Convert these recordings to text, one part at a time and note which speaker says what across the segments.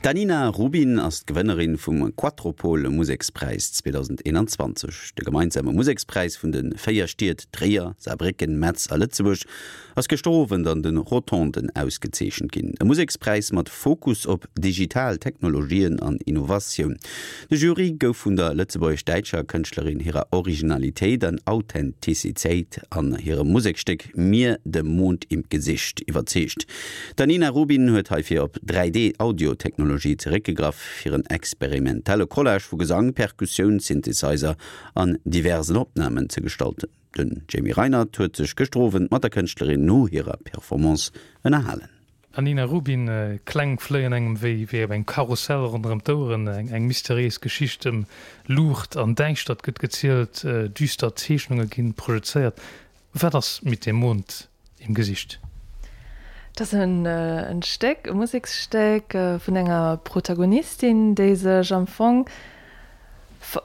Speaker 1: D'Anina Rubin ass d'Gewënnerin vum Quattropole Musekspräis 2021. De gemeinsame Musekspräis vun de 4 Stied Tréier, Saarbrécken, Metz a Lëtzebuerg ass gëschter Owend an de Rotonden ausgezeechent ginn. E Musekspräis mat Fokus op digital Technologien an Innovatioun. De Jury gouf vun der lëtzebuergesch-däitscher Kënschtlerin hirer Originalitéit an Authentizitéit an hirem Musekstéck Mir dem Mond im Gesicht iwwerzeegt. D'Anina Rubin huet heifir op 3D-Audio-Technologie zeréckgegraff, fir en experimentelle Collage vu Gesang, Perkussioun, Synthesizer an diversen Opnamen ze gestalten. Den Jamie Reinert huet sech gëschter Owend mat der Kënschtlerin no hirer Performance ënnerhalen.
Speaker 2: Anina Rubin, Kläng fléien engem wéi wéi op engem Karussell ronderëm d'Oueren. Eng mysteriéis Geschicht ëm Luucht an Däischtert gëtt gezielt, düster Zeechnunge gi projezéiert. Wat ass Mit dem Mond im Gesicht?
Speaker 3: Et ass en Stéck, e Museksstéck vun enger Protagonistin, déi sech am Fong,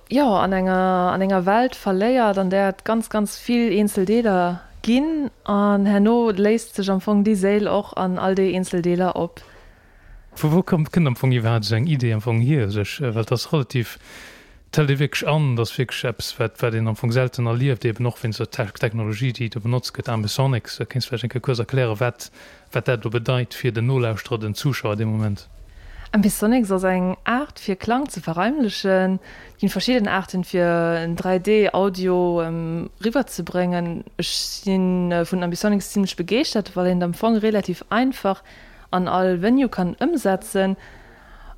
Speaker 3: jo, an enger, an enger Welt verléiert, an där et ganz, ganz vill eenzel Deeler ginn. An herno léist sech am Fong déi Séil och an all déi eenzel Deeler op.
Speaker 2: Vu wou kënnt am Fong iwwerhaapt esou eng Idee am Fong hier u sech? Well et ass relativ, et hëlt ee wierklech an, et ass wierklech eppes, wat wat een am Fong selten erlieft, eben och wéinst der Technologie, déi do benotzt gëtt, Ambisonics. Kéints vläicht eng Kéier kuerz erklären, wat wat dat elo bedeit fir den Nolauschterer, den Zuschauer dee Moment?
Speaker 3: Ambisonics ass eng Aart fir Klang ze verraimlechen. Et ginn verschidden Aarten fir en 3D Audio riwwer ze bréngen. Ech si vun Ambisonics zimlech begeeschtert, well een et am Fong relativ einfach an all Venue kann ëmsetzen.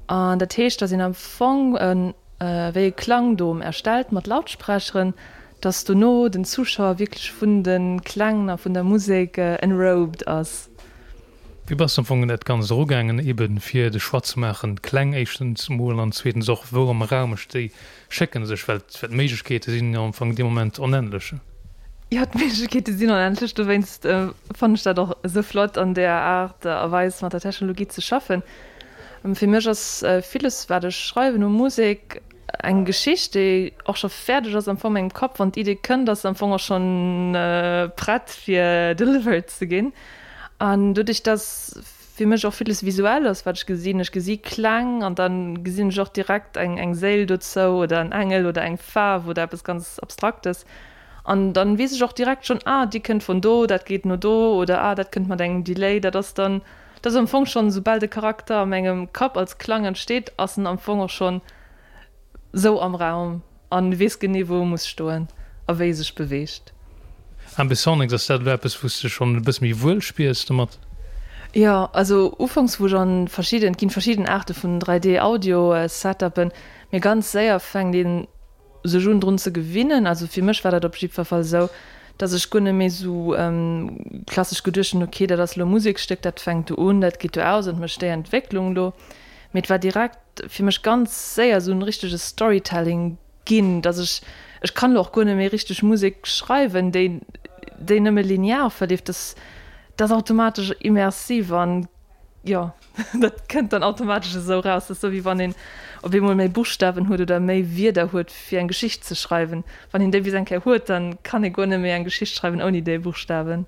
Speaker 3: An dat heescht, dass een am Fong e wéi e Klangdom erstellt mat Lautsprecheren, dass dono den Zuschauer wierklech vun de Kläng a vun der Musek enrobed ass.
Speaker 2: Wéi bass de am Fong un dat Ganzt erugaangen, eben fir de Choix ze maachen, d'Kläng éischtens emol an zweetens och, wou am Raum ech déi Schécken sech, well d'Méiglechkeete sinn jo am Fong dee Moment onendlech.
Speaker 3: Jo, d'Méiglechkeete sinn onendlech, dowéinst fannen ech dat och esou flott, an deeër Aart a Weis mat der Technologie ze schaffen. Fir mech ass villes, wat ech schreiwen u Musek, eng Geschicht, déi och scho fäerdeg ass am Fong a mengem Kapp. Wann d'Idee kënnt, ass se am Fong och schonn prett fir delivered ze ginn. An doduerch, dass fir mech och villes visuell ass, wat ech gesinn. Ech gesi Kläng an da gesinn ech och direkt eng eng Séil dozou oder en Engel oder eng Faarf oder eppes ganz Abstraktes. An dann weess ech och direkt schonn, ah, déi kënnt vun do, dat geet no do oder ah, dat kënnt mat engem Delay. Dat ass dann, dat ass am Fong schonn, soubal de Charakter a mengem Kapp als Klang entsteet, ass en am Fong och schonn sou am Raum an weess genee wou e muss stoen a wéi e sech beweegt.
Speaker 2: Ambisonics, ass dat elo eppes wou s de schonn e bësse méi wuel spiers domat?
Speaker 3: Jo, also ufanks wou ech an verschidden, et ginn verschidden Aarte vun 3D Audio Setupen, mee ganz séier fänkt een sech un drun ze gewinnen. Also fir mech war dat op jiddwer Fall esou, dass ech guer net méi sou klassesch geduecht hunn, ok dat ass elo e Musekstéck, dat fänkt do un, dat geet do aus an mécht déi Entwécklung do, mee et war direkt fir mech ganz séier esou en richtege Storytelling ginn, dass ech, ech kann elo och guer net méi richteg Musek schreiwen, déi, déi nëmme linear verleeft, dass dat ass automatesch immersiv an jo, dat kënnt dann automatesch esou raus. Dat ass esou wéi wann een op eemol méi Buschtawen huet oder méi Wierder huet fir eng Geschicht ze schreiwen. Wann een déi bis eng Kéier huet, dann kann ee guer net méi eng Geschicht schreiwen ouni déi Buschtawen.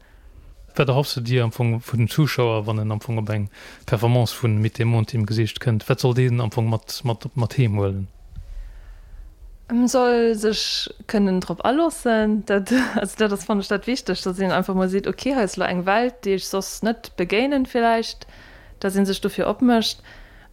Speaker 2: Wat erhoffs de dir am Fong vun dem Zuschauer, wann en am Fong op eng Performance vu Mit dem Mond im Gesicht kënnt? Wat soll deen am Fong mat mat mat heem huelen?
Speaker 3: En soll sech kënnen drop aloossen. Dat also dat ass fannen ech dat Wichtegst, datt een einfach mol seet, ok hei ass elo eng Welt, déi ech soss net begéinen villäicht, datt ee sech dofir opmécht.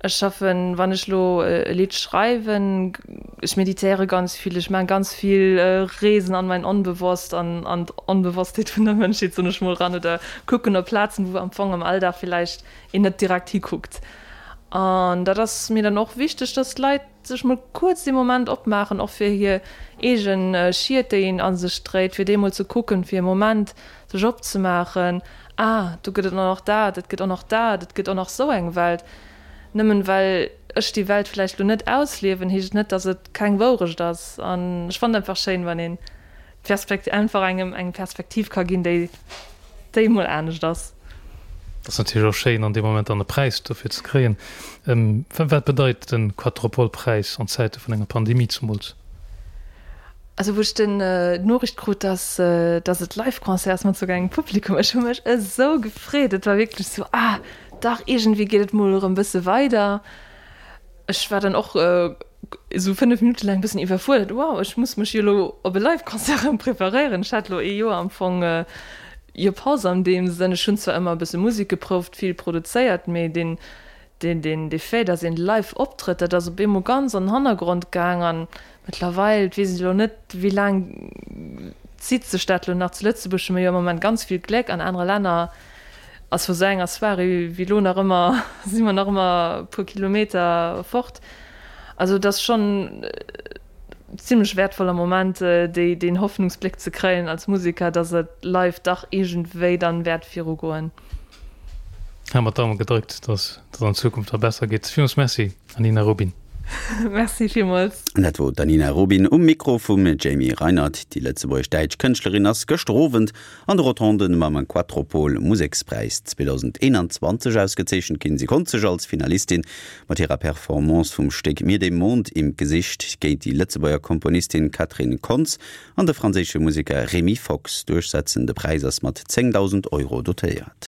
Speaker 3: Ech schaffen, wann ech elo e Lidd schreiwen, ech meditéiere ganz vill, ech maachen ganz vill Reesen an mein Onbewosst, an an d'Onbewosstheet vun der Mënschheet, soen ech mol, ran oder kucken op Plazen, wou am Fong am Alldag villäicht een net direkt hikuckt. An dat ass mir dann och wichteg, dass d'Leit sech mol kuerz dee Moment opmaachen, och fir hir eegen Schied, déi een a sech dréit, fir déi mol ze kucken, fir e Moment sech opzemaachen, Ah, do gëtt et och nach dat, et gëtt och nach dat, et gëtt och nach sou eng Welt. Nëmmen well ech déi Welt vläicht lo net ausliewen, heescht et net, dass et keng Wourecht ass. An ech fannen et einfach schéin, wann een d'Perspekt einfach engem eng Perspektiv ka ginn, déi déi mol anescht ass.
Speaker 2: Et ass natierlech och schéin, an deem Moment dann e Präis dofir ze kréien. Wat bedeit de Quattropole-Präis an Zäite vun enger Pandemie zumools?
Speaker 3: Also wou ech den d'Noriicht krut, dass dass et Live-Concert ass mat souguer engem Publikum, ech hu mech esou gefreet. Et war wierklech esou, ah dach, iergendwéi geet et mol erëm bësse weider. Ech war dann och esou 5 Minutte laang e bëssen iwwerfuerdert, wow, ech muss mech jo elo op e Live-Concert erëm preparéieren. Ech hat elo ee Joer am Fong jo Paus an deem Sënn. Ech hunn zwar ëmmer e bësse Musek geprouft, vill produzéiert, mee deen, deen, deen, dee Fait, datt een live optrëtt, dat ass op eemol ganz an den Hannergrond gaang. An mëttlerweil, et weess ech elo net, wéi laang zitt sech dat elo nach, zu Lëtzebuerg hu mir jo am Moment ganz vill Gléck, an anere Länner ass vu sou enger Soirée wéi elo nach ëmmer, si mer nach ëmmer e puer Kilometer fort. Also et ass schonn zimlech wäertvoll am Moment, déi, deen Hoffnungsbléck ze kréien als Museker, datt et live dach iergendwéi dann wäert virugoen.
Speaker 2: Hu mer d'Daume gedréckt, datt et an Zukunft da besser geet. Villmools Merci, Anina Rubin.
Speaker 3: Merci villmools.
Speaker 1: Dat wor d'Anina Rubin um Mikro vum Jamie Reinert. Déi lëtzebuergesch-däitsch Kënschtlerin ass gëschter Owend an de Rotonden mam Quattropol Musekspräis 2021 ausgezeechent ginn. Si konnt sech als Finalistin mat hirer Performance vum Stéck Mir dem Mond im Gesicht géint déi Lëtzebuerger Komponistin Catherine Kontz an de franséische Museker Rémi Fox duerchsetzen. De Präis ass mat 10.000 Euro dotéiert.